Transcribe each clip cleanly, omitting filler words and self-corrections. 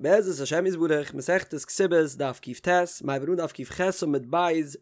בעזרת השם יתברך, מסכת כתובות, דף קט, מ'הייבט אן דף קח עמוד ב',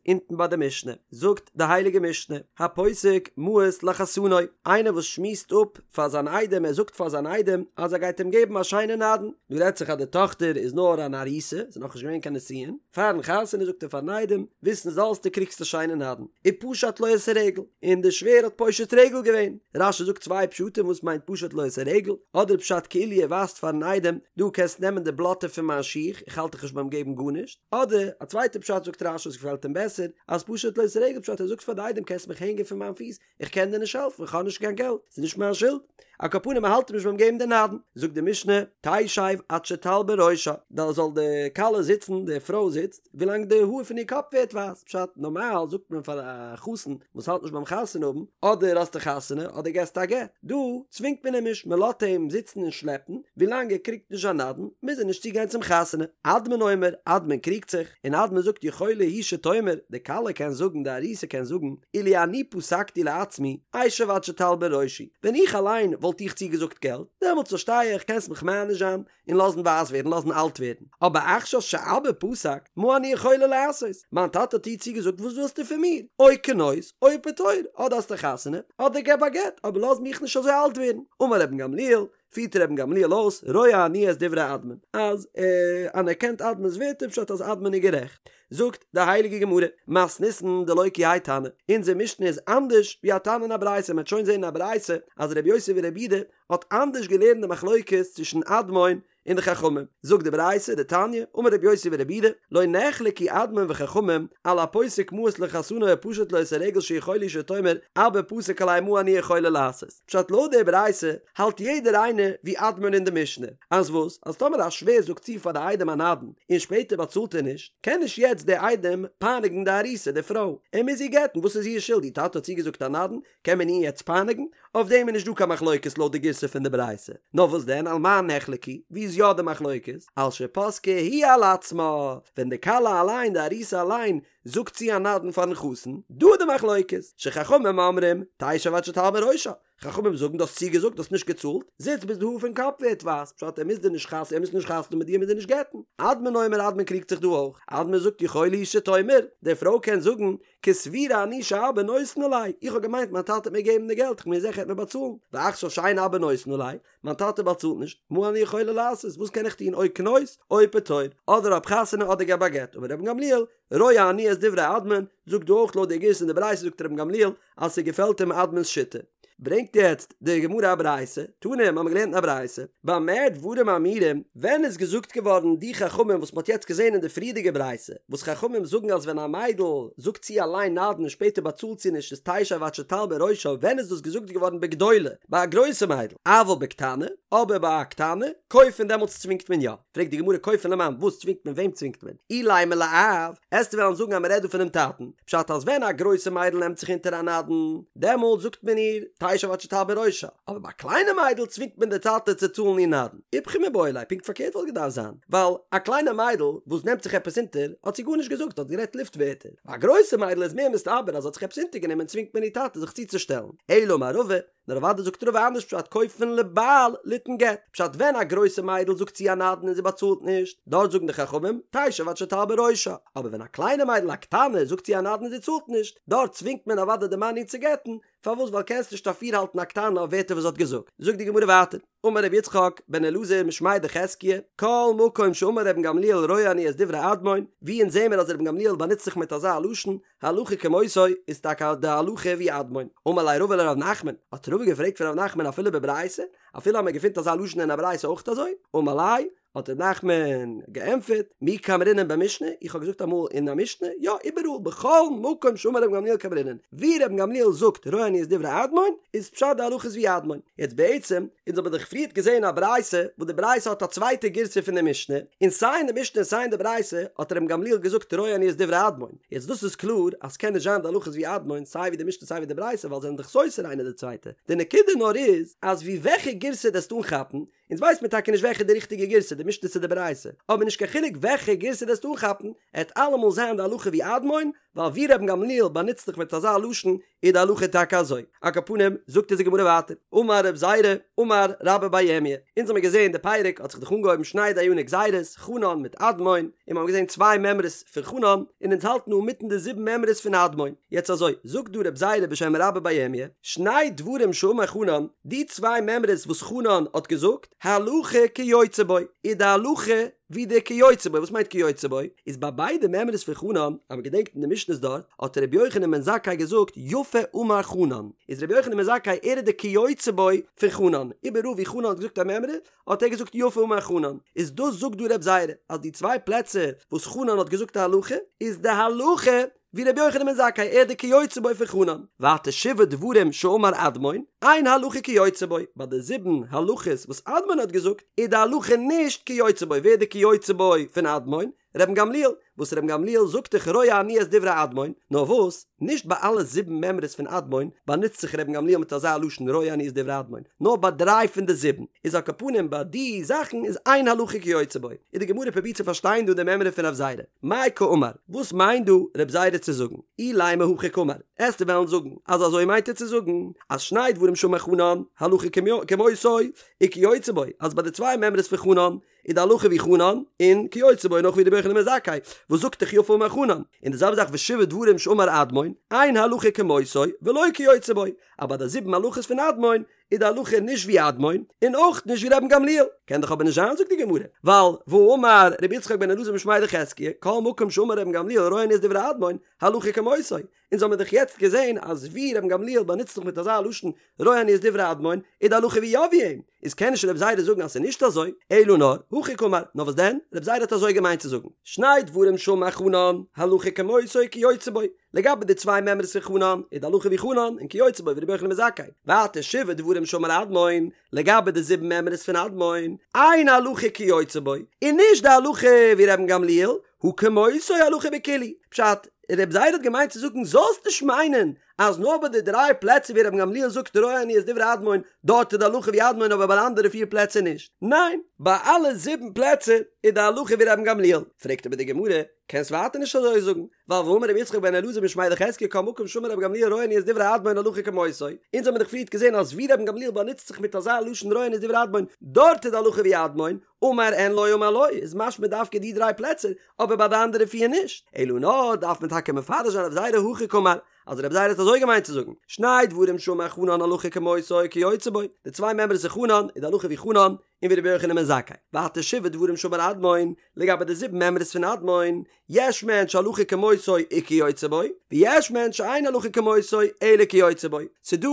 אונטן ביי די משנה, זאגט די הייליגע משנה, הפוסק מעות לחתנו, איינער וואס שמועסט אפ פאר זיין איידעם, ער זאגט פאר זיין איידעם אז ער גייט אים געבן א שיינע נדן, דא רעדט זיך אז די טאכטער איז נאר אן ארוסה, ס'איז נאכנישט געווען קיין נישואין, פארן חתונה זאגט ער פארן איידעם, וויסן זאלסטו קריגסט א שיינע נדן, ופשט לו את הרגל, און די שווער האט פושט רגל געווען, רש"י זאגט צוויי פשטים וואס מיינט פשט לו את הרגל, אדער פשט כאילו ער ווייזט פארן איידעם, דו קענסט נעמען די בלאטע פון מיין שיך, איך האלט דיך נישט ביים געבן גארנישט, אדער א צווייטע פשט זאגט רש"י וואס געפעלט אים בעסער, אז פשט לו את הרגל פשט ער זאגט פאר די איידעם קענסט מיך הענגען פון מיין פיס, איך קען דיר נישט העלפן, איך האב נישט קיין געלט, ס'איז נישט מיין שולד. על כל פנים ער האלט אים נישט ביים געבן די נדן. זאגט די משנה, תשב עד שתלבין ראשה, דא זאל די כלה זיצן, די פרוי זיצט, ווילאנג די האר פון איר קאפ ווערט ווייס, פשט, נארמאל זאגט מען פאר א חתן וואס האלט נישט ביים חתונה האבן, אדער האסטו חתונה אדער געסטו א גט, דא צווינגט מען אים נישט, מען לאזט אים זיצן און שלעפן, ווילאנג ער קריגט נישט זיין נדן, מוז ער נישט צוגיין צום חתונה. אדמון אומר, אדמון קריגט זיך, און אדמון זאגט יכולה היא שתאמר, די כלה קען זאגן, די ארוסה קען זאגן, אילו אני פסקתי לעצמי, אשב עד שתלבין ראשי, ווען איך אליין וואלט איך צוגעזאגט געלט, דעמאלטס פארשטיי איך, קענסט מיך מעניש זיין, און לאזן ווייס ווערן, לאזן אלט ווערן, אבער עכשיו שאבא פסק, מה אני יכולה לעשות? מיין טאטע האט דיר צוגעזאגט וואס ווילסטו פון מיר? או כנוס, או פטור, אדער האסטו חתונה, אדער געב א גט, אבער לאז מיך נישט אזוי אלט ווערן. אמר רבן גמליאל, פירט רבן גמליאל אויס, רואה אני את דברי אדמון, אז ער אנערקענט אדמון'ס ווערטער פשט אז אדמון איז גערעכט. זאגט די הייליגע גמרא, מתניתין דלא כי האי תנא, אונזער משנה איז אנדערש ווי א תנא אין א ברייתא, מען וועט שוין זען אין א ברייתא אז רבי יוסי ברבי יהודה האט אנדערש געלערנט די מחלוקת צווישן אדמון און די חכמים, זאגט די ברייתא, דתניא, אמר רבי יוסי ברבי יהודה, לא נחלקו אדמון וחכמים על הפוסק מעות לחתנו ופשט לו את הרגל שיכולה היא שתאמר אבא פסק עלי מה אני יכולה לעשות. פשט לויט די ברייתא האלט יעדער איינער ווי אדמון אין די משנה, אז וואס? אז טאמער א שווער זאגט צו פאר די איידעם א נדן און שפעטער באצאלט ער נישט, קען נישט יעצט דער איידעם פייניגן די ארוסה, די פרוי, ער מוז איר גט'ן, וואס איז איר שולד? איר טאטע האט צוגעזאגט א נדן, קען מען איר יעצט פייניגן? אויף דעם איז נישט דא קיין מחלוקת לויט די גירסא פון די ברייתא. נאר וואס דען על מה נחלקו, ווי איז יא די מחלוקת? על שפסקה היא על עצמה, ווען די כלה אליין, די ארוסה אליין, זאגט צו א נדן פארן חתן, דא איז די מחלוקת, שחכמים אומרים, תשב עד שתלבין ראשה, חכמים זאגן דו האסט צוגעזאגט, דו האסט נישט געצאלט, זיץ ביז די האר פון קאפ ווערט ווייס, פשט ער מוז דיר נישט חתונה, ער מוז נישט חתונה מיט דיר, ער מוז דיר נישט גט'ן. אדמון אומר אדמון קריגט זיך דא אויך, אדמון זאגט יכולה היא שתאמר, די פרוי קען זאגן, כסבורה אני שאבא נותן עלי, איך האב געמיינט מיין טאטע וועט מיר געבן די געלט, איך בין זיכער ער וועט מיר באצאלן, ועכשיו שאין אבא נותן עלי, מיין טאטע באצאלט נישט, מה אני יכולה לעשות, וואס קען איך טון, או כנוס, או פטור, אדער האב חתונה אדער געב א גט, אמר רבן גמליאל, רואה אני את דברי אדמון, זאגט דא אויך לויט די גירסא אין די ברייתא זאגט רבן גמליאל אז ס'געפעלט אים אדמון'ס שיטה. ברענגט יעצט די גמרא א ברייתא, תנא, האמיר געלערנט אין א ברייתא, במה דברים אמורים, ווען איז געזאגט געווארן די חכמים וואס מ'האט יעצט געזען אין די פריערדיגע ברייתא, וואס חכמים זאגן אז ווען א מיידל זאגט צו אליין נדן און שפעטער באצאלט זי נישט איז תשב עד שתלבין ראשה, ווען איז דאס געזאגט געווארן בגדולה, ביי א גרויסע מיידל, אבל בקטנה, אבער ביי א קטנה, כופין דעמאלטס צווינגט מען יא. פרעגט די גמרא כופין למאן, וואס צווינגט מען וועם צווינגט מען? אילימא לאב, עסטו וועלן זאגן אז מען רעדט דא פונעם טאטן, פשט אז ווען א גרויסע מיידל נעמט זיך אונטער א נדן, דעמאלט זאגט מען איר תשב עד שתלבין ראשה, אבער ביי א קליינע מיידל צווינגט מען די טאטע צו צאלן איר נדן. איפכא מיבעי ליה, פונקט פארקערט וואלט געדארפט זיין, ווייל א קליינע מיידל וואס נעמט זיך עפעס אונטער האט זי גארנישט געזאגט, האט גערעדט לופט ווערטער, ביי א גרויסע מיידל איז מער מסתבר אז האט זיך עפעס אונטערגענומען צווינגט מען איר טאטע זיך צוצושטעלן, אלא אמר רבא, נאר אוודאי זאגט רבא אנדערש פשט כופין לבעל ליתן גט, פשט ווען א גרויסע מיידל זאגט צו א נדן און זי באצאלט נישט, דארט זאגן די חכמים תשב עד שתלבין ראשה, אבער ווען א קליינע מיידל א קטנה זאגט צו א נדן און זי צאלט נישט, דארט צווינגט מען אוודאי די מאן איר צו גט'ן, פארוואס ווייל קענסט נישט אפירהאלטן א קטנה אויף ווערטער וואס זי האט געזאגט. זאגט די גמרא ווייטער, אמר רבי יצחק בן אלעזר משמיה דחזקיה, כל מקום שאמר רבן גמליאל רואה אני את דברי אדמון, ווי אונז זעמער אז רבן גמליאל באנוצט זיך מיט אזא לשון, הלכה כמותו איז טאקע די הלכה ווי אדמון. אמר ליה רבא לרב נחמן, האט רבא געפרעגט פון רב נחמן אפילו בברייתא, אפילו אז מען געפינט אזא לשון אין א ברייתא אויך אזוי? אמר ליה, האט רב נחמן געענטפערט, מי קאמרינן במשנה, איך האב געזאגט אמאל אין א משנה, יא איבעראל בכל מקום שאמר רבן גמליאל קאמרינן, ווי רבן גמליאל זאגט רואה אני את דברי אדמון, איז פשט די הלכה איז ווי אדמון. יעצט בעצם, אונז האבן דאך פריערט געזען א ברייתא, וואס די ברייתא האט א צווייטע גירסא פון די משנה, און סיי אין די משנה און סיי אין די ברייתא האט רבן גמליאל געזאגט רואה אני את דברי אדמון. יעצט דאס איז קלאר אז ס'קען נישט זיין די הלכה איז ווי אדמון סיי ווי די משנה סיי ווי די ברייתא ווייל זיי זענען דאך סותר איינע די צווייטע. די נקודה נאר איז אז ווי וועלכע גירסא דו עסט אנכאפן, אונז ווייסט מיר טאקע נישט וועלכע איז די ריכטיגע גירסא די משנה צו די ברייתא, אבער נישט קיין חילוק וועלכע גירסא דו עסט אנכאפן, עט אלעמאל זיין די הלכה ווי אדמון, ווייל ווי רבן גמליאל באנוצט זיך מיט אזא לשון איז די הלכה טאקע אזוי. על כל פנים, זאגט אונז די גמרא ווייטער, אמר רב זירא, אמר רבה בר ירמיה, אונז האמיר געזען די פרק האט זיך דאך אנגעהויבן שני דייני גזירות, חנן מיט אדמון, און מיר האבן געזען צוויי מימרות פון חנן, און אונז האלטן אינמיטן די זיבן מימרות פון אדמון. יעצט אזוי, זאגט דא רב זירא בשם רבה בר ירמיה, שני דברים שאמר חנן, די צוויי מימרות וואס חנן האט געזאגט, הלכה כיוצא בו, איז די הלכה ווי די כיוצא בו, וואס מיינט כיוצא בו? איז ביי ביידע מימרות פון חנן, אז מען געדענקט אין די משנה'ס דארט, האט ר' יוחנן בן זכאי געזאגט יפה אמר חנן, איז ר' יוחנן בן זכאי ער איז די כיוצא בו פון חנן, איבעראל ווי חנן האט געזאגט א מימרא, האט ער געזאגט יפה אמר חנן, איז דאס זאגט דא ר' זירא, אז די צוויי פלעצער וואס חנן האט געזאגט א הלכה, איז די הלכה ווי רבי יוחנן בן זכאי ער די כיוצא בו פון חנן, ווייטער שבעה דברים שאמר אדמון, אין הלכה כיוצא בו, ביי די זיבן הלכות וואס אדמון האט געזאגט, איז די הלכה נישט כיוצא בו, ווער איז די כיוצא בו פון אדמון? רבן גמליאל, וואס רבן גמליאל זאגט דאך רואה אני את דברי אדמון, נאר וואס, נישט ביי אלע זיבן מימרות פון אדמון באנוצט זיך רבן גמליאל מיט אזא לשון רואה אני את דברי אדמון, נאר ביי דריי פון די זיבן, איז על כל פנים ביי די זאכן איז אין הלכה כיוצא בו, איז די גמרא פרובירט צו פארשטיין דא די מימרא פון רב זירא. מאי קאמר, וואס מיינט דא רב זירא צו זאגן? אילימא הכי קאמר, עסטו וועלן זאגן אז אזוי מיינט ער צו זאגן, אז שני דברים שאמר חנן, הלכה כמותו, וכיוצא בו, אז ביי די צוויי מימרות פון חנן, איז די הלכה ווי חנן, און כיוצא בו נאך ווי רבי יוחנן בן זכאי, וואס זאגט דאך יפה אמר חנן, און די זעלבע זאך ושבעה דברים שאמר אדמון, אין הלכה כמותו, ולא כיוצא בו, אז ביי די זיבן הלכות פון אדמון, איז די הלכה נישט ווי אדמון, און אויך נישט ווי רבן גמליאל. קען דאך אבער נישט זיין זאגט די גמרא, ווייל והאמר רבי יצחק בן אלעזר משמיה דחזקיה, כל מקום שאמר רבן גמליאל רואה אני את דברי אדמון, הלכה כמותו. אונז האמיר דאך יעצט געזען אז ווי רבן גמליאל באנוצט זיך מיט אזא לשון רואה אני את דברי אדמון, איז די הלכה ווי יא ווי אים. איז קען נישט רב זירא זאגן אז ס'איז נישט אזוי, אלא נאר, הכי קאמר, נאר וואס דען, רב זירא האט אזוי געמיינט צו זאגן, שני דברים שאמר חנן, הלכה כמותו וכיוצא בו, לגבי די צוויי מימרות פון חנן, איז די הלכה ווי חנן, און כיוצא בו ווי רבי יוחנן בן זכאי. ווייטער שבעה דברים שאמר אדמון, לגבי די זיבן מימרות פון אדמון, אין הלכה כיוצא בו, און נישט די הלכה ווי רבן גמליאל, הא כמותו הלכה בכולהו. פשט, רב זירא האט געמיינט צו זאגן זאלסט נישט מיינען אז נאר ביי די דריי פלעצער ווי רבן גמליאל זאגט רואה אני את דברי אדמון, דארט איז די הלכה ווי אדמון אבער ביי די אנדערע פיר פלעצער נישט. ניין, ביי אלע זיבן פלעצער איז די הלכה ווי רבן גמליאל. פרעגט אבער די גמרא, קענסט ווייטער נישט אזוי זאגן, ווייל והאמר רבי יצחק בן אלעזר משמיה דחזקיה כל מקום שאמר רבי גמליאל רואה אני את דברי אדמון הלכה כמותו, אונז האמיר דאך פריערט געזען אז ווי רבן גמליאל באנוצט זיך מיט אזא לשון רואה אני את דברי אדמון, דארט איז די הלכה ווי אדמון, אמר אין לא אמר לא, איז משמע דווקא די דריי פלעצער, אבער ביי די אנדערע פיר נישט, אלא נאר דארף מען טאקע מפרש זיין רב זירא הכי קאמר, אז רב זירא האט אזוי געמיינט צו זאגן, שני דברים שאמר חנן הלכה כמותו וכיוצא בו, די צוויי מימרות פון חנן איז די הלכה ווי חנן, און ווי רבי יוחנן בן זכאי, ווייטער שבעה דברים שאמר אדמון, לגבי די זיבן מימרות פון אדמון, יש מהן שהלכה כמותו וכיוצא בו, ויש מהן שאין הלכה כמותו אלא כיוצא בו. ס'דא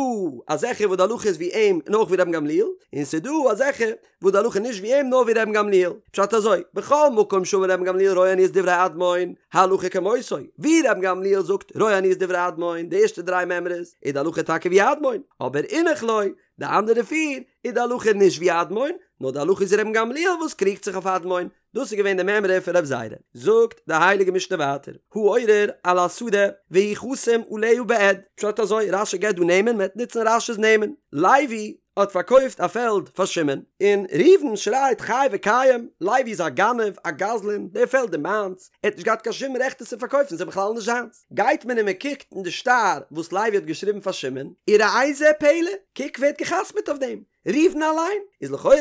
אזעלכע וואס די הלכה איז ווי אים און אויך ווי רבן גמליאל, און ס'דא אזעלכע וואס די הלכה נישט ווי אים נאר ווי רבן גמליאל. פשט אזוי, בכל מקום שאמר רבן גמליאל רואה אני את דברי אדמון, הלכה כמותו, ווי רבן גמליאל זאגט רואה אני את דברי אדמון, די ערשטע דריי מימרות, איז די הלכה טאקע ווי אדמון, אבער אינך לא, די אנדערע פיר, איז די הלכה נישט ווי אדמון, נאר די הלכה איז רבן גמליאל וואס קריגט זיך אויף אדמון. דאס איז געווען די מימרא פון רב זירא. זאגט די הייליגע משנה ווייטער, העורר על השדה והוא חתום עליה בעד, פשט אזוי, רש"י געבט דא נעמען, מען וועט נוצן רש"י'ס נעמען, לוי האט פארקויפט א פעלד פאר שמעון, און ראובן שרייט חי וקיים, לוי איז א גנב, א גזלן, די פעלד איז מיינס, ער האט נישט געהאט קיין שום רעכט עס צו פארקויפן, ס'איז בכלל נישט זיינס. גייט מען און מען קוקט אין די שטר וואס לוי האט געשריבן פאר שמעון, וראה זה פלא, קוק ווער האט גע'חתמ'עט אויף דעם, ראובן אליין איז לכאורה,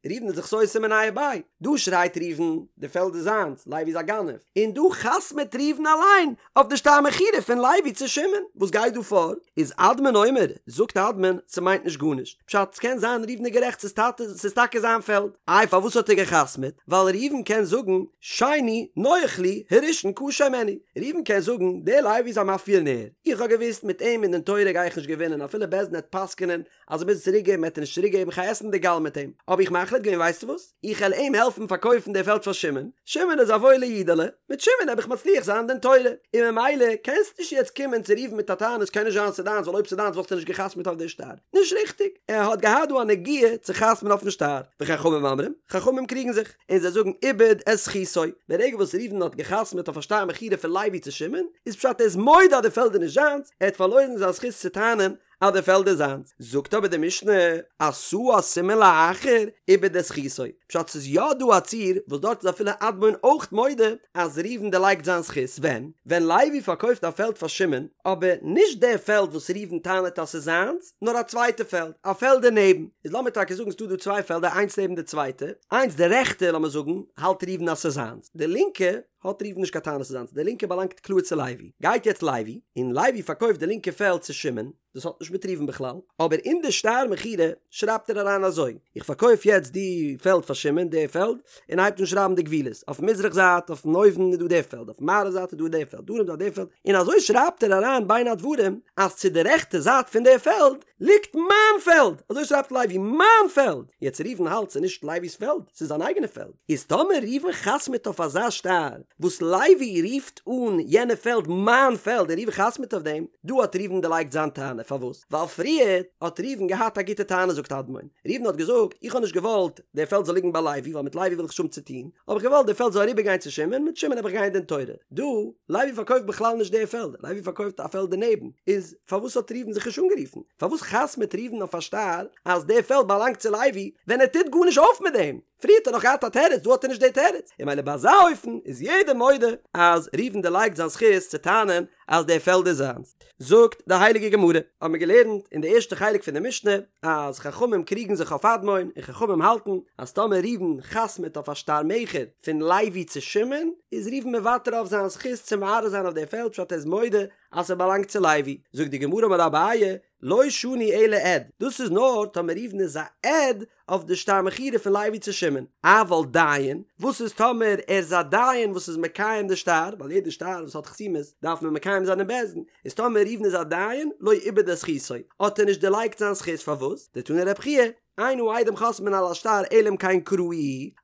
ראובן איז דאך סותם מיניה וביה, דא שרייט ראובן די פעלד איז זיינס, לוי איז א גנב, און דא חתמ'עט ראובן אליין אויף די שטר מכירה פון לוי צו שמעון, וואס גייט דא פאר? איז אדמון אומר, זאגט אדמון, ס'מיינט נישט גארנישט, פשט, ס'קען זיין ראובן איז גערעכט ס'איז טאטע ס'איז טאקע זיין פעלד, איי פארוואס האט ער געחתמ'עט? ווייל ראובן קען זאגן, שני נוח לי, הראשון קשה הימני, ראובן קען זאגן, דער לוי איז א מאפיאנער, איך האב געוואוסט מיט אים אין דין תורה גיי איך נישט געווינען אפילו בית דין העט פסק'נען אז ער מוז צוריק געבן וועט ער נישט צוריק געבן כ'גיי עסן די גאל מיט אים, האב איך מחליט געווען ווייסטו וואס, איך העל אים העלפן פארקויפן די פעלד פאר שמעון, שמעון איז א וואוילע אידעלע, מיט שמעון העב איך מצליח זיין דין תורה, און ממילא קענסט נישט יעצט קומען צו ראובן מיט א טענה ס'קען נישט זיין ס'דיינס ווייל אויב ס'דיינס וואלסטו נישט גע'חתמ'ט אויף די שטר, נישט ריכטיג, ער האט געהאט דא א נגיעה צו חתמ'ן אויפן שטר, וחכמים אומרים, חכמים קריגן זיך, און זיי זאגן איבד את זכותו, ברגע וואס ראובן האט גע'חתמ'ט אויף א שטר מכירה פון לוי צו שמעון, איז פשט ער איז מודה אז די פעלד איז נישט זיינס, ער האט פארלוירן זיין זכות צו טענה'ן. אז די פעלד איז זיינס. זאגט אבער די משנה, עשאה סימן לאחר איבד את זכותו, פשט ס'איז יא דא א ציור וואס דארט איז אפילו אדמון אויך מודה אז ראובן דערלייגט זיין זכות, ווען? ווען לוי פארקויפט א פעלד פאר שמעון, אבער נישט די פעלד וואס ראובן טענה'ט אז ס'איז זיינס, נאר א צווייטע פעלד, א פעלד דערנעבן, איז לאמיר טאקע זאגן ס'דא דא צוויי פעלדער איינס נעבן די צווייטע, איינס די רעכטע לאמיר זאגן האלט ראובן אז ס'איז זיינס, די לינקע האט ראובן נישט קיין טענה ס'איז זיינס, די לינקע באלאנגט קלאר צו לוי, גייט יעצט לוי, און לוי פארקויפט די לינקע פעלד צו שמעון, דאס האט נישט מיט ראובן בכלל, אבער אין די שטר מכירה שרייבט ער אריין אזוי, איך פארקויף יעצט די פעלד פאר שמעון, די פעלד, און הייבט אן שרייבן די גבולות, אויפן מזרח זייט אויפן אויבן איז דא די פעלד, אויפן מערב זייט איז דא די פעלד, דרום זייט די פעלד, און אזוי שרייבט ער אריין בין הדברים אז צו די רעכטע זייט פון די פעלד ליגט מיין פעלד, אזוי שרייבט לוי, מיין פעלד! יעצט ראובן האלט ס'איז נישט לוי'ס פעלד, ס'איז זיין אייגענע פעלד, איז טאמער ראובן חתמ'עט אויף אזא שטר וואס לוי רופט אן יענע פעלד מיין פעלד און ראובן חתמ'עט אויף דעם, דא האט ראובן דערלייגט זיין טענה, פארוואס? ווייל פריער האט ראובן געהאט א גוטע טענה זאגט אדמון, ראובן האט געזאגט איך האב נישט געוואלט די פעלד זאל ליגן ביי לוי ווייל מיט לוי וויל איך נישט האבן צו טון, האב איך געוואלט די פעלד זאל אריבער גיין צו שמעון, מיט שמעון האב איך גיין דין תורה. דא, לוי פארקויפט בכלל נישט די פעלד, לוי פארקויפט א פעלד דערנעבן, איז פארוואס האט ראובן זיך נישט אנגערופן? פארוואס חתמ'עט ראובן אויף א שטר אז די פעלד באלאנגט צו לוי ווען ער טוט גארנישט אויף מיט דעם? פריער האט ער נאך געהאט א תירוץ, דא האט ער נישט די תירוץ, און ממילא ביי אזא אופן איז יעדער מודה אז ראובן דערלייגט זיין זכות צו טענה'ן אז די פעלד איז זיינס. זאגט די הייליגע גמרא, האבן מיר געלערנט אין די ערשטע חלק פון די משנה אז חכמים קריגן זיך אויף אדמון און חכמים האלטן אז טאמער ראובן חתמ'עט אויף א שטר מכר פון לוי צו שמעון איז ראובן מוותר אויף זיין זכות צו מערער זיין אויף די פעלד פשט ער איז מודה אז ס'באלאנגט צו לוי. זאגט די גמרא אמר אביי לא שנו אלא עד, דאס איז נאר טאמער ראובן איז א עד אויף די שטר מכירה פון לוי צו שמעון, אבל דיין, וואס איז טאמער ער איז א דיין וואס איז מקיים די שטר, ווייל יעדע שטר וואס האט חתימות דארף מען מקיים זיין אין בית דין, איז טאמער ראובן איז א דיין, לא איבד את זכותו, האט ער נישט דערלייגט זיין זכות, פארוואס? דתני רבי חייא, אין העדים חותמין על השטר אלא אם כן קראוהו,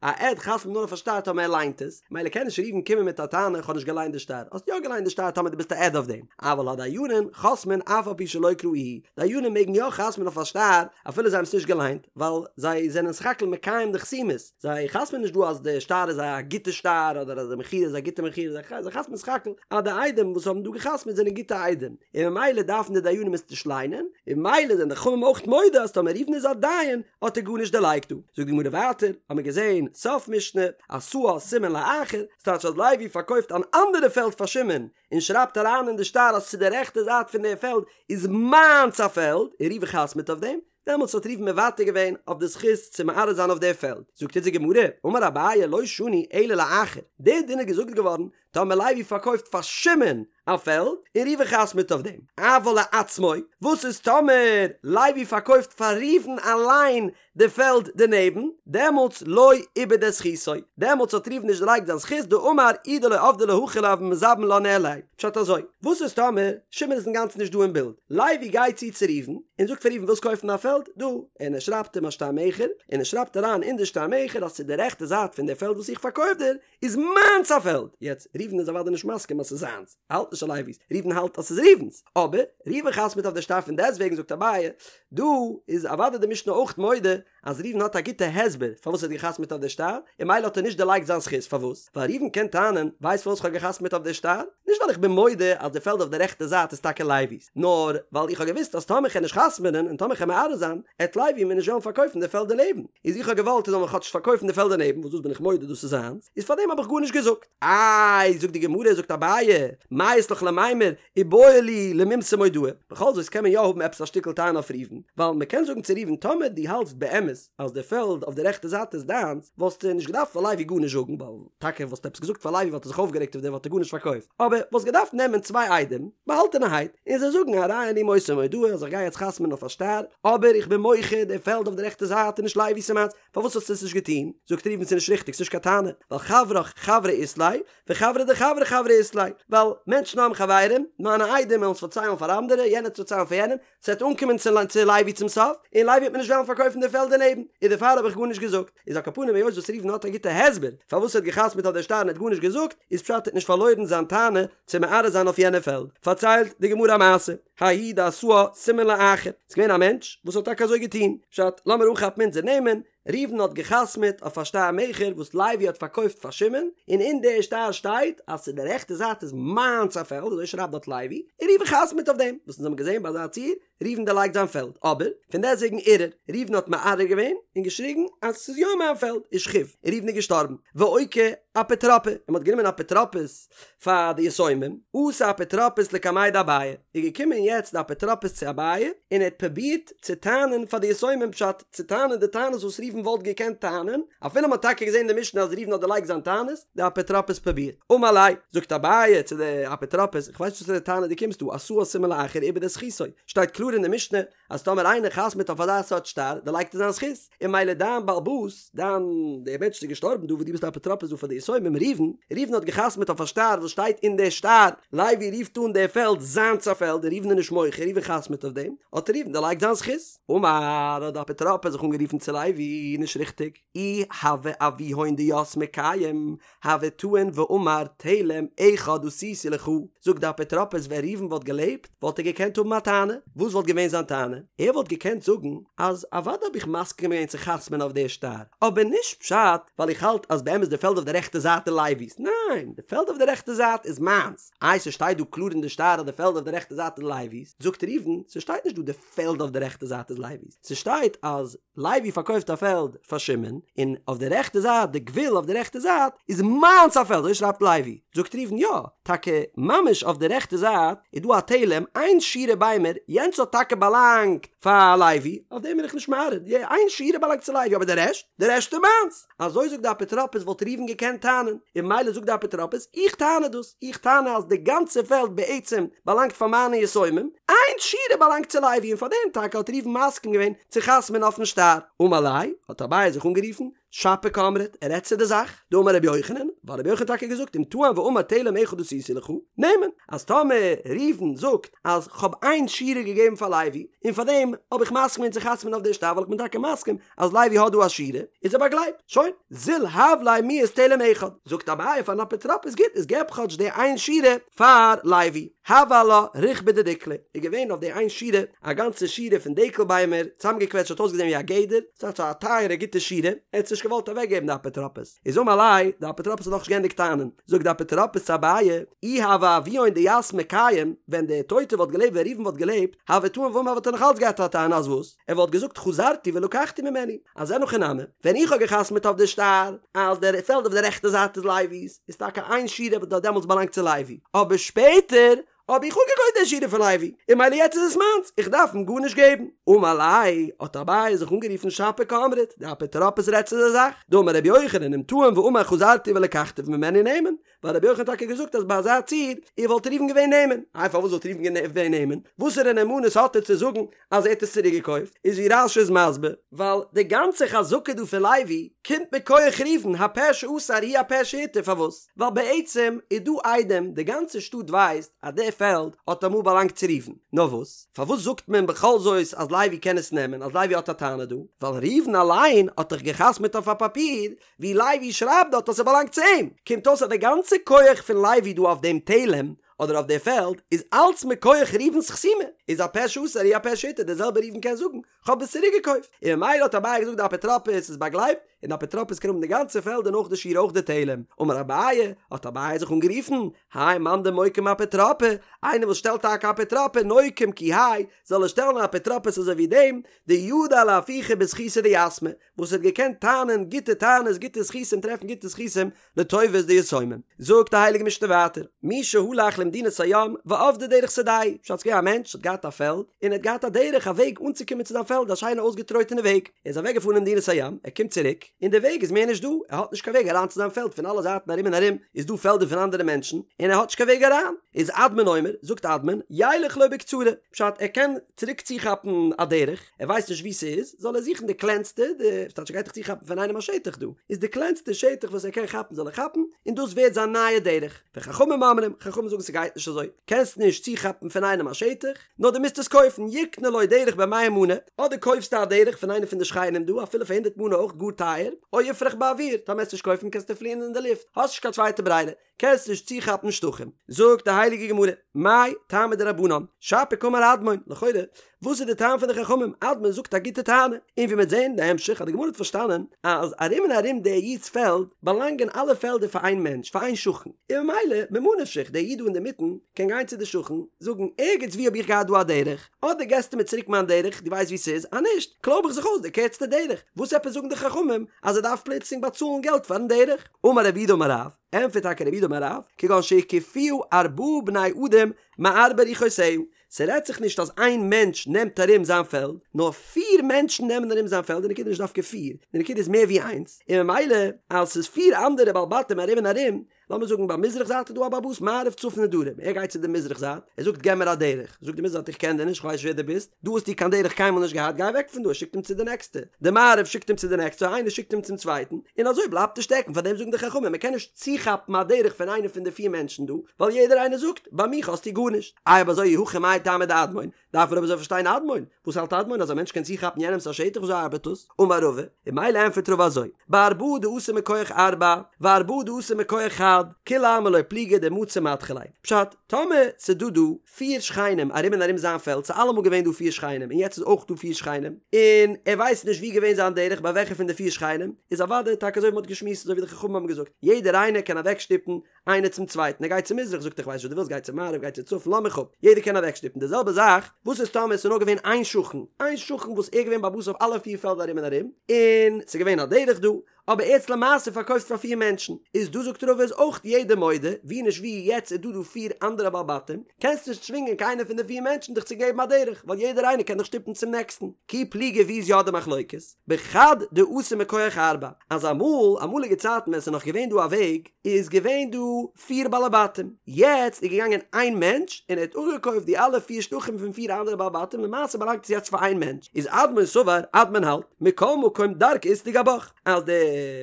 א עד חתמ'ט נאר אויף א שטר טאמער ער ליינט עס, מילא קען נישט ראובן קומען מיט א טענה איך האב נישט געליינט די שטר, האסט יא געליינט די שטר טאמער דו ביסט א עד אויף דעם, אבל הדיינים חותמין אף על פי שלא קראוהו, דיינים מעגן יא חתמ'ן אויף א שטר אפילו זיי האבן עס נישט געליינט, ווייל זיי זענען סך הכל מקיים די חתימות, זיי חתמ'ן נישט דא אז די שטר איז א גוטע שטר אדער אז די מכירה איז א גוטע מכירה, זיי חתמ'ן סך הכל אז די עדים וואס האבן דא געחתמ'ט זענען גוטע עדים, און ממילא דארפן די דיינים עס נישט ליינען, און ממילא זענען די חכמים אויך מודה אז טאמער ראובן איז א דיין האט ער גארנישט דערלייגט דא. זאגט די גמרא ווייטער, האמיר געזען סוף משנה, עשאה סימן לאחר, ס'טייטש אז לוי פארקויפט אן אנדערע פעלד פאר שמעון, און שרייבט אריין אין די שטר אז צו די רעכטע זייט פון די פעלד איז מיינס א פעלד, און ראובן חתמ'ט אויף דעם, דעמאלטס האט ראובן מוותר געווען אויף די זכות צו מערער זיין אויף די פעלד. זאגט אונז די גמרא, אמר אביי לא שנו אלא לאחר, די דין איז געזאגט געווארן טאמער לוי פארקויפט פאר שמעון א פעלד, און ראובן חתמ'ט אויף דעם, אבל לעצמו, וואס איז טאמער לוי פארקויפט פאר ראובן אליין די פעלד דערנעבן, דעמאלטס לא איבד את זכותו, דעמאלטס האט ראובן נישט דערלייגט זיין זכות, דאמר אי דלא עבדי לה הכי לא הוה מזבין לה ניהליה. פשט אזוי, וואס איז טאמער שמעון איז אינגאנצן נישט דא אין בילד, לוי גייט צו צו ראובן און זאגט פאר ראובן ווילסט קויפן א פעלד דא, און ער שרייבט אים א שטר מכר, און ער שרייבט אריין אין די שטר מכר אז צו די רעכטע זייט פון די פעלד וואס איך פארקויף דיר איז מיינס א פעלד, יעצט ראובן איז אוודאי נישט מסכים אז ס'איז זיינס, ער האלט נישט אז לוי'ס, ראובן האלט אז ס'איז ראובן'ס, אבער ראובן חתמ'ט אויף די שטר פון דעסטוועגן זאגט אביי, דא איז אוודאי די משנה אויך מודה אז ראובן האט א גוטע הסבר פארוואס ער האט געחתמ'ט אויף די שטר, און ממילא האט ער נישט דערלייגט זיין זכות, פארוואס? ווייל ראובן קען טענה'ן, ווייסט פארוואס כ'האב געחתמ'ט אויף די שטר? נישט ווייל איך בין מודה אז די פעלד אויף די רעכטע זייט איז טאקע לוי'ס, נאר ווייל איך האב געוואוסט אז טאמער כ'על נישט חתמ'נען און טאמער כ'על מערער זיין, עט לוי מיר נישט וועלן פארקויפן די פעלד דערנעבן, איז איך האב געוואלט ער זאל מיר כאטש פארקויפן די פעלד דערנעבן, וואס דאס בין איך מודה דאס איז זיינס, איז פארדעם האב איך גארנישט געזאגט. איי, זאגט די גמרא, זאגט אביי, מאי אית לך למימר, איבעי להו למימסר מודעה, בכל זאת קען מען יא האבן עפעס א שטיקל טענה אויף ראובן, ווייל מען קען זאגן צו ראובן טאמער דו האלטסט באמת אז די פעלד אויף די רעכטע זייט איז דיינס, וואלסטו נישט געדארפט פאר לוי גארנישט זאגן, ווייל טאקע וואלסטו עפעס געזאגט פאר לוי וואלט ער זיך אויפגערעגט אויף דיר וואלט ער גארנישט פארקויפט, אבער וואלסט געדארפט נעמען צוויי עדים, באהאלטענערהייט, און זיי זאגן הרי אני מוסר מודעה אז איך גיי יעצט חתמ'ן אויף א שטר, אבער איך בין מוחה די פעלד אויף די רעכטע זייט איז נישט לוי'ס ס'איז מיינס, פארוואס האסטו עס נישט געטון? זאגט ראובן ס'איז נישט ריכטיג ס'נישט קיין טענה, ווייל חברך חברא אית ליה, וחברא דחברך חברא אית ליה, ווייל מענטשן האבן חברים, מיינע עדים וועלן עס פארציילן פאר אנדערע, יענער וועט עס פארציילן פאר יענעם, ס'וועט אנקומען צו לוי צום סוף, און לוי וועט מיר נישט וועלן פארקויפן די פעלד דערנעבן, איז דערפאר האב איך גארנישט געזאגט. איז על כל פנים היות וואס ראובן האט א גוטע הסבר פארוואס ער האט געחתמ'ט אויף דער שטר און ער האט גארנישט געזאגט, איז פשט ער האט נישט פארלוירן זיין טענה צו מערער זיין אויף יענע פעלד. פארציילט די גמרא א מעשה, ההוא דעשאה סימן לאחר, ס'איז געווען א מענטש וואס האט טאקע אזוי געטון, פשט, לאמיר אנכאפן אונזער נעמען, ראובן האט געחתמעט אויף א שטר מכר וואס לוי האט פארקויפט פאר שמעון, און אין די שטר שטייט אז צו די רעכטע זייט איז מיינס א פעלד, אזוי שרייבט דארט לוי, און ראובן חתמעט אויף דעם, וואס אונז האבן געזען ביי אזא ציור, ראובן דערלייגט זיין פעלד, אבער פון דעסטוועגן ערער, ראובן האט מערער געווען און געשריגן אז ס'איז יא מיין פעלד, ושכיב, און ראובן איז געשטארבן, ואוקי אפוטרופא, און מ'האט גענומען אפוטרופוס פאר די יתומים, אתא אפוטרופוס לקמיה דאביי, איז געקומען יעצט די אפוטרופוס צו אביי, און ער האט פרובירט צו טענה'ן פאר די יתומים פשט, צו טענה'ן די טענות וואס ראובן וואלט געקענט טענה'ן, אפילו מ'האט טאקע געזען אין די משנה אז ראובן האט דערלייגט זיין טענות, די אפוטרופוס פרובירט. אמר ליה, זאגט אביי צו די אפוטרופוס, איך ווייס נישט וואסערע טענה דו קומסט דא, עשאה סימן לאחר איבד את זכותו, שטייט קלאר אין די משנה אז טאמער איינער חתמ'עט אויף אזא סארט שטר, דערלייגט ער זיין זכות, און ממילא דיין בעל הבית, דיין, דער מענטש וואס איז געשטארבן דא וואס דו ביסט אפוטרופוס דא פאר די יתומים, ראובן, ראובן האט געחתמ'עט אויף א שטר וואס שטייט אין די שטר, לוי רופט אן די פעלד זיינס א פעלד און ראובן איז נישט מוחה, ראובן חתמ'עט אויף דעם, האט ראובן דערלייגט זיין זכות. אמר, האט די אפוטרופוס זיך אנגערופן צו לוי, נישט ריכטיג, אי הוה אבוהון דיתמי קיים, הוה טעין ואמר תלם אחד עשיתי לך, זאגט די אפוטרופוס ווען ראובן וואלט געלעבט וואלט ער געקענט האבן א טענה, וואס וואלט געווען זיין טענה? ער וואלט געקענט זאגן אז אוודאי האב איך מסכים געווען צו חתמ'ן אויף די שטר, אבער נישט פשט ווייל איך האלט אז באמת די פעלד אויף די רעכטע זייט איז לוי'ס, ניין, די פעלד אויף די רעכטע זייט איז מיינס, איי ס'שטייט דא קלאר אין די שטר אז די פעלד אויף די רעכטע זייט איז לוי'ס, זאגט ראובן, ס'שטייט נישט דא די פעלד אויף די רעכטע זייט איז לוי'ס, ס'שטייט אז לוי פארקויפט א פעלד פאר שמעון, און אויף די רעכטע זייט, די גבול אויף די רעכטע זייט, איז מיינס א פעלד, אזוי שרייבט לוי. זאגט ראובן, יא, טאקע ממש אויף די רעכטע זייט איז דא א תלם, איין שורה ביימער, יענץ האט טאקע באלאנגט פאר לוי, אויף דעם בין איך נישט מערער, די איין שורה באלאנגט צו לוי, אבער די רעשט, די רעשט איז מיינס. אזוי זאגט די אפוטרופוס וואלט ראובן געקענט טענה'ן, און ממילא זאגט די אפוטרופוס, איך טענה דאס, איך טענה אז די גאנצע פעלד בעצם באלאנגט פאר מיינע יתומים, איין שורה באלאנגט צו לוי און פאר דעם טאקע האט ראובן מסכים געווען צו חתמ'ען אויפן שטר. אמר ליה, האט אביי זיך אנגערופן, שפיר קאמרת, ער רעדט צו די זאך, דאמר רבי יוחנן, ווייל רבי יוחנן האט טאקע געזאגט אם טען ואמר תלם אחד עשיתי לך, נאמן, אז טאמער ראובן זאגט אז כ'האב איין שורה געגעבן פאר לוי, און פאר דעם האב איך מסכים געווען צו חתמ'ען אויף די שטר ווייל איך בין טאקע מסכים אז לוי האט דא א שורה, איז ער באגלייבט. שוין, זיל הב ליה מיהת תלם אחד. זאגט אביי פארן אפוטרופוס גוט, איז געב כאטש די איין שורה פאר לוי. הוה עלה ריכבא דדיקלא, איז געווען אויף די איין שורה א גאנצע שורה פון דקל ביימער, צוזאמגעקוועטשט האט אויסגעזען ווי א גדר, ס'איז א טייערע גוטע שורה, ער האט עס נישט געוואלט אוועקגעבן די אפוטרופוס. איז אמר ליה, די אפוטרופוס האט נאכנישט געענדיגט טענה'ן, זאגט די אפוטרופוס צו אביי, אי הוה אבוהון דיתמי קיים, ווען דער טויטער וואלט געלעבט ווען ראובן וואלט געלעבט, הוה טעין ואמר וואלט ער נאך אלץ געהאט א טענה אז וואס? ער וואלט געזאגט חזרתי ולקחתי ממנו, אז אין הכי נמי, ווען איך האב געחתמעט אויף די שטר אז דער פעלד אויף די רעכטע זייט איז לוי'ס, איז טאקע איין שורה וואס האט דעמאלטס באלאנגט צו לוי, אבער שפעטער האב איך אפגעקויפט די שורה פון לוי, און ממילא יעצט איז עס מיינס, איך דארף אים גארנישט געבן. אמר ליה, האט אביי זיך אנגערופן שפיר קאמרת, די אפוטרופוס רעדט צו די זאך, דאמר רבי יוחנן אם טען ואמר חזרתי ולקחתי ממנו נאמן, ווייל רבי יוחנן האט טאקע געזאגט אז ביי אזא ציור וואלט ראובן געווען נאמן, איי פארוואס וואלט ראובן געווען נאמן? וואסערע נאמנות האט ער צו זאגן אז ער האט עס צוריק געקויפט? איז ווי רש"י איז מסביר, ווייל די גאנצע חזקה דא פון לוי קומט מכח ראובן, הפה שאסר הוא הפה שהתיר, פארוואס? ווייל בעצם איז דא עדים, די גאנצע שטאט ווייסט אז די פעלד האט אמאל באלאנגט צו ראובן, נאר וואס? פארוואס זאגט מען בכל זאת אז לוי קען עס נעמען, אז לוי האט א טענה דא? ווייל ראובן אליין האט דאך געחתמעט אויף א פאפיר ווי לוי שרייבט דארט אז ס'באלאנגט צו אים, קומט אויס אז די גאנצע כח פון לוי דא אויף דעם תלם אדער אויף די פעלד איז אלץ מכח ראובן'ס חתימה, איז הפה שאסר הוא הפה שהתיר, דער זעלבער ראובן קען זאגן כ'האב עס צוריק געקויפט, און ממילא האט אביי געזאגט די אפוטרופוס איז באגלייבט, און די אפוטרופוס קען האבן די גאנצע פעלד און אויך די שורה אויך די תלם, אמר אביי, האט אביי זיך אנגערופן, האי מאן דמוקים אפוטרופא, איינער וואס שטעלט טאקע אפוטרופא נוקים כי האי, זאל ער שטעלן א אפוטרופוס אזוי ווי דעם, דידע לאפוכי בזכותא דיתמי, וואס האט געקענט טענה'ן גוטע טענות גוטע זכותים טרעפן גוטע זכותים לטובת די יתומים. זאגט די הייליגע משנה ווייטער, מי שהלך למדינת הים ואבדה דרך שדהו, פשט ס'געווען א מענטש האט געהאט א פעלד און ער האט געהאט א דרך א וועג אנצוקומען צו זיין פעלד א שיינע אויסגעטרויטענע וועג, ער איז אוועק געפארן אין מדינת הים, ער קומט צוריק און די וועג איז מער נישט דא, ער האט נישט קיין וועג אריין צו זיין פעלד פון אלע זייטן ארום און ארום איז דא פעלדער פון אנדערע מענטשן און ער האט נישט קיין וועג אריין, איז אדמון אומר, זאגט אדמון, ילך לו בקצרה, פשט ער קען צוריק צוכאפן א דרך, ער ווייסט נישט וואו ס'איז, זאל ער זוכן די קלענסטע, די, ס'טייטש ער גייט דאך צוכאפן פון איינעם א שטח דא, איז די קלענסטע שטח וואס ער קען כאפן זאל ער כאפן, און דאס ווערט זיין נייע דרך. וחכמים אומרים, חכמים זאגן ס'גייט נישט אזוי, קענסט נישט צוכאפן פון איינעם א שטח, נאר דו מוזט עס קויפן, יקנה לו דרך במאה מנה, אדער קויפסטו א דרך פון איינעם פון די שכנים דא, אפילו פאר הונדערט מנה אויך גאר טייער, או יפרח באוויר, טאמער וועסט נישט קויפן קענסטו פליען אין די לופט, האסט נישט קיין צווייטע ברירה, קענסט נישט צוכאפן שטחים. זאגט די הייליגע גמרא, מאי טעמא דרבנן, שפיר קאמר אדמון, לכאורה, וואס איז די טעם פון די חכמים? אדמון זאגט א גוטע טענה, און ווי מ'וועט זען אין די המשך אז די גמרא האט פארשטאנען אז ארום און ארום דער איד'ס פעלד באלאנגען אלע פעלדער פאר איין מענטש, פאר איין שכן, און ממילא ממה נפשך דער איד דא אינדערמיטן קען גיין צו די שכן זאגן ערגעץ וואו האב איך געהאט דא א דרך, אדער געסטו מיר צוריק מיין דרך, דו ווייסט וואו ס'איז, אז נישט, קלויב איך זיך אויס די קערצטע דרך, וואס עפעס זאגן די חכמים אז ער דארף פלוצלינג באצאלן געלט פארן דרך? אמר רב יהודה אמר רב, ענטפערט טאקע רב יהודה אמר רב, כגון שהקיפוה ארבעה בני אדם מארבע רוחותיה, ס'רעדט זיך נישט אז איין מענטש נעמט ארום זיין פעלד, נאר פיר מענטשן נעמען ארום זיין פעלד, די נקודה איז נישט דווקא פיר, די נקודה איז מער ווי איינס, און ממילא אז ס'איז פיר אנדערע בעלי בתים ארום און ארום, לאמיר זאגן ביי מזרח זייט איז דא א בעל הבית מערב צפון און דרום, ער גייט צו די מזרח זייט, ער זאגט געב מיר א דרך, זאגט די מזרח זייט איך קען דיר נישט, איך ווייס נישט ווער דו ביסט, דא האסטו קיין דרך קיינמאל נישט געהאט, גיי אוועק פון דא, ער שיקט אים צו די נעקסטע, די מערב שיקט אים צו די נעקסטע, איינער שיקט אים צום צווייטן, און אזוי בלייבט ער שטעקן, פארדעם זאגן די חכמים מען קען נישט צוכאפן א דרך פון איינער פון די פיר מענטשן דא, ווייל יעדער איינער זאגט, ביי מיך האסטו גארנישט. איי אויב אזוי אי הכי מאי טעמא דאדמון, דארף מען אבער אזוי פארשטיין אדמון, וואס האלט אדמון אז א מענטש קען צוכאפן יענעמס א שטח וויאזוי ארבעט דאס? אמר רבא, און ממילא ענטפערט רבא אזוי, בארבעה דאתו מכח ארבעה, וארבעה דאתו מכח חד, כולי עלמא לא פליגי דמצי מדחי ליה. פשט, טאמער ס'דא דא פיר שכנים ארום און ארום זיין פעלד, ס'איז אלעמאל געווען דא פיר שכנים און יעצט איז אויך דא פיר שכנים, און ער ווייסט נישט ווי געווען זיין דרך ביי וועלכע פון די פיר שכנים, איז אוודאי טאקע אזוי ווי מ'האט געשמועסט אזוי ווי די חכמים האבן געזאגט, יעדער איינער קען אוועקשטופן איינער צום צווייטן, ער גייט צו מזרח זאגט ער כ'ווייס נישט וואס דו ווילסט גיי צו מערב גיי צו צפון לאז מיך אפ, יעדער קען אוועקשטופן, די זעלבע זאך וואס איז טאמער עס איז נאר געווען איין שכן, איין שכן וואס ער איז געווען בעל הבית אויף אלע פיר פעלדער ארום און ארום, און ס'איז געווען א דרך דא, אבער ער האט עס למעשה פארקויפט פאר פיר מענטשן, איז דא זאגט רבא איז אויך יעדער מודה, ווי נישט ווי יעצט איז דא דא פיר אנדערע בעלי בתים, קענסט נישט צווינגען קיינער פון די פיר מענטשן דיך צו געבן א דרך, ווייל יעדער איינער קען דיך שטופן צום נעקסטן, כי פליגי ווי איז יא די מחלוקת? בחד דאתא מכח ארבעה, אז אמאל, אמאליגע צייטן ווען ס'איז נאך געווען דא א וועג, איז געווען דא פיר בעלי בתים, יעצט איז געגאנגען איין מענטש און ער האט אפגעקויפט די אלע פיר שטחים פון פיר אנדערע בעלי בתים, למעשה באלאנגט עס יעצט פאר איין מענטש, איז אדמון סבר, אדמון האלט, מכל מקום דרכא אית לגבך, אז די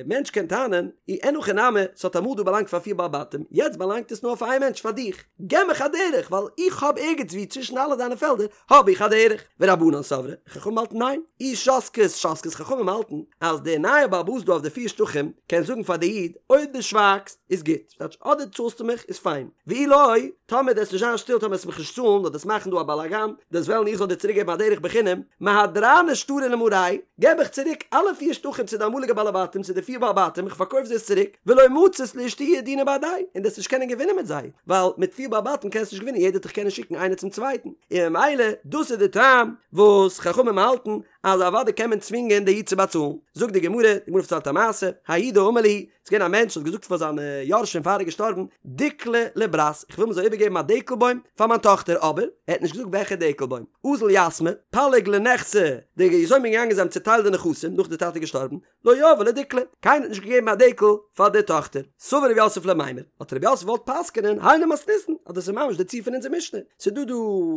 מענטש קען טענה'ן, אי אין הכי נמי, ס'האט אמאל דא באלאנגט פאר פיר בעלי בתים, יעצט באלאנגט עס נאר פאר איין מענטש, פאר דיך, געב מיך א דרך, ווייל איך האב ערגעץ וואו צווישן אלע דיינע פעלדער האב איך א דרך. ורבנן סברי, חכמים האלטן ניין. אי שתקת שתקת חכמים האלטן אז דער נייער בעל הבית דא אויף די פיר שטחים קען זאגן פאר די איד אויב דו שווייגסט איז גוט, ס'טייטש אדער צאלסטו מיך איז פיין, ואי לא, טאמער דו וועסט נישט זיין שטיל טאמער וועסט מיך נישט צאלן אדער וועסט מאכן דא א באלאגאן, דו וועסט וועלן איך זאל דיר צוריק געבן א דרך בחינם, מהדרנא שטרי למרייהו, געב איך צוריק אלע פיר שטחים צו די אמאליגע בעלי בתים צו די פיר בעלי בתים איך פארקויף זיי עס צוריק, ולא מצית לאשתעויי דינא בהדייהו, און דו וועסט נישט קענען געווינען מיט זיי, ווייל מיט פיר בעלי בתים קענסטו נישט געווינען יעדער וועט דיך קענען שיקן איינער צום צווייטן, און ממילא דאס איז די טעם וואס חכמים האלטן אז אוודאי קען מען צווינגען די איד צו באצאלן. זאגט די גמרא, די גמרא פארציילט א מעשה, ההוא דאמר להו, ס'איז געווען א מענטש וואס האט געזאגט פאר זיינע יורשים פאר ער איז געשטארבן, דיקלא לברת, איך וויל מען זאל איבערגעבן א דקל בוים פאר מיין טאכטער, אבער ער האט נישט געזאגט וועלכע דקל בוים. אזל יתמי, פלג לנכסי, די יתומים זענען געגאנגען זיי האבן צוטיילט די נכסים נאך די טאטע איז געשטארבן, לא יהבו לה דיקלא, קיינער האט נישט געגעבן א דקל פאר די טאכטער. סבר רב יוסף למימר, האט רב יוסף געוואלט פסק'נען היינו מתניתין, אז דאס איז ממש די ציור פון אונזער משנה, ס'איז דא דא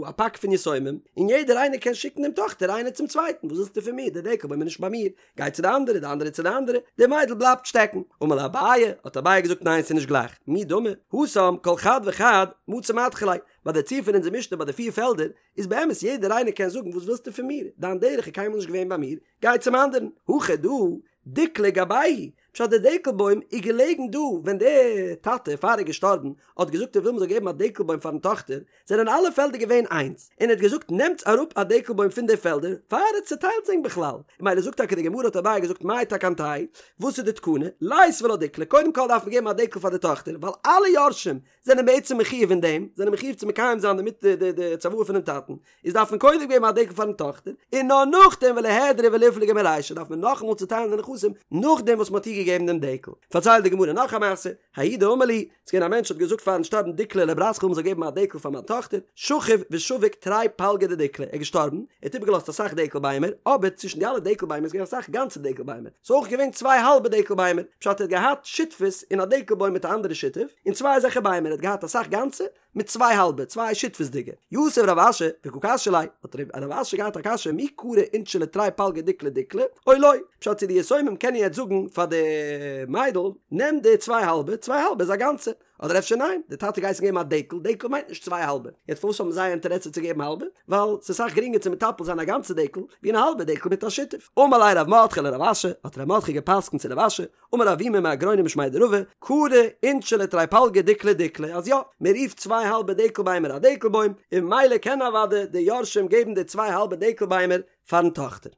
א פאק פון יתומים, און יעדער איינער קען שיקן דעם טאכטער איינער צום צווייטן, וואס ווילסטו פון מיר, די דקל בוים איז נישט ביי מיר, גיי צו די אנדערע, די אנדערע צו די אנדערע, די מיידל בלייבט שטעקן. אמר ליה אביי, האט אביי געזאגט ניין ס'איז נישט גלייך, מי דמי, התם כל חד וחד מצי מדחי ליה, ביי די ציור פון אונזער משנה ביי די פיר פעלדער, איז באמת יעדער איינער קען זאגן וואס ווילסטו פון מיר, דיין דרך איז קיינמאל נישט געווען ביי מיר, גיי צום אנדערן, הכא דא, דיקלא גבייהו, פשט די דקל בוים איז געלעגן דא ווען די טאטע פאר ער איז געשטארבן האט געזאגט ער וויל מ'זאל געבן א דקל בוים פארן טאכטער, זענען אלע פעלדער געווען איינס, און ער האט געזאגט נעמטס אראפ א דקל בוים פון די פעלדער פאר ער האט צוטיילט זיי בכלל, און ממילא זאגט טאקע די גמרא האט אביי געזאגט מאי תקנתייהו, וואס איז די תקנה, ליתבו לה דיקלא, קודם כל דארף מען געבן א דקל פאר די טאכטער, ווייל אלע יורשים זענען בעצם מחויב אין דעם, זענען מחויב צו מקיים זיין דערמיט די די צוואה פונעם טאטן, איז דארף מען קודם געבן א דקל פארן טאכטער, און נאר נאכדעם וליהדרו וליפלגו מרישא דארף מען נאכאמאל צוטיילן די נכסים נאכדעם וואס מען האט איר געגעבן דעם דקל. פארציילט די גמרא נאך א מעשה, ההוא דאמר להו, ס'איז געווען א מענטש האט געזאגט פארן שטארבן דיקלא לברת כ'וויל מ'זאל געבן א דקל פאר מיין טאכטער, שכיב ושביק תרי פלגי דדיקלא, ער איז געשטארבן, ער האט איבערגעלאזט אסאך דקל ביימער, אבער צווישן די אלע דקל ביימער איז געווען אסאך גאנצע דקל ביימער, ס'איז אויך געווען צוויי האלבע דקל ביימער, פשט ער האט געהאט שותפות אין א דקל בוים מיט א אנדערע שותף, און צוויי אזעלכע ביימער, ער האט געהאט אסאך גאנצע, מיט צוויי האלבע, צוויי שותפות'דיגע. יתיב רב אשי, וקא קשיא ליה, האט רב אשי געהאט א קשיא מי קרו אינשי לתרי פלגי דיקלא דיקלא, או לא, פשט צו די יתומים קענען יעצט זאגן פאר די. מיידל, נעם די צוויי האלבע, צוויי האלבע איז א גאנצע. אדער אפשר ניין, די טאטע האט געהייסן געבן א דקל, דקל מיינט נישט צוויי האלבע, יעצט פארוואס האבן זיי א אינטערעסע צו געבן האלבע? ווייל ס'איז אסאך גרינגער צו מטפל זיין א גאנצע דקל, ווי אן האלבע דקל מיט א שותף. אמר ליה רב מרדכי לרב אשי, האט רב מרדכי גע'פסק'נט צו רב אשי, אמר אבימי מהגרוניא משמיה דרבא, קרי אינשי לתרי פלגי דיקלא דיקלא, אז יא, מען רופט צוויי האלבע דקל ביימער א דקל בוים, און ממילא קען אוודאי די יורשים געבן די צוויי האלבע דקל ביימער פארן טאכטער.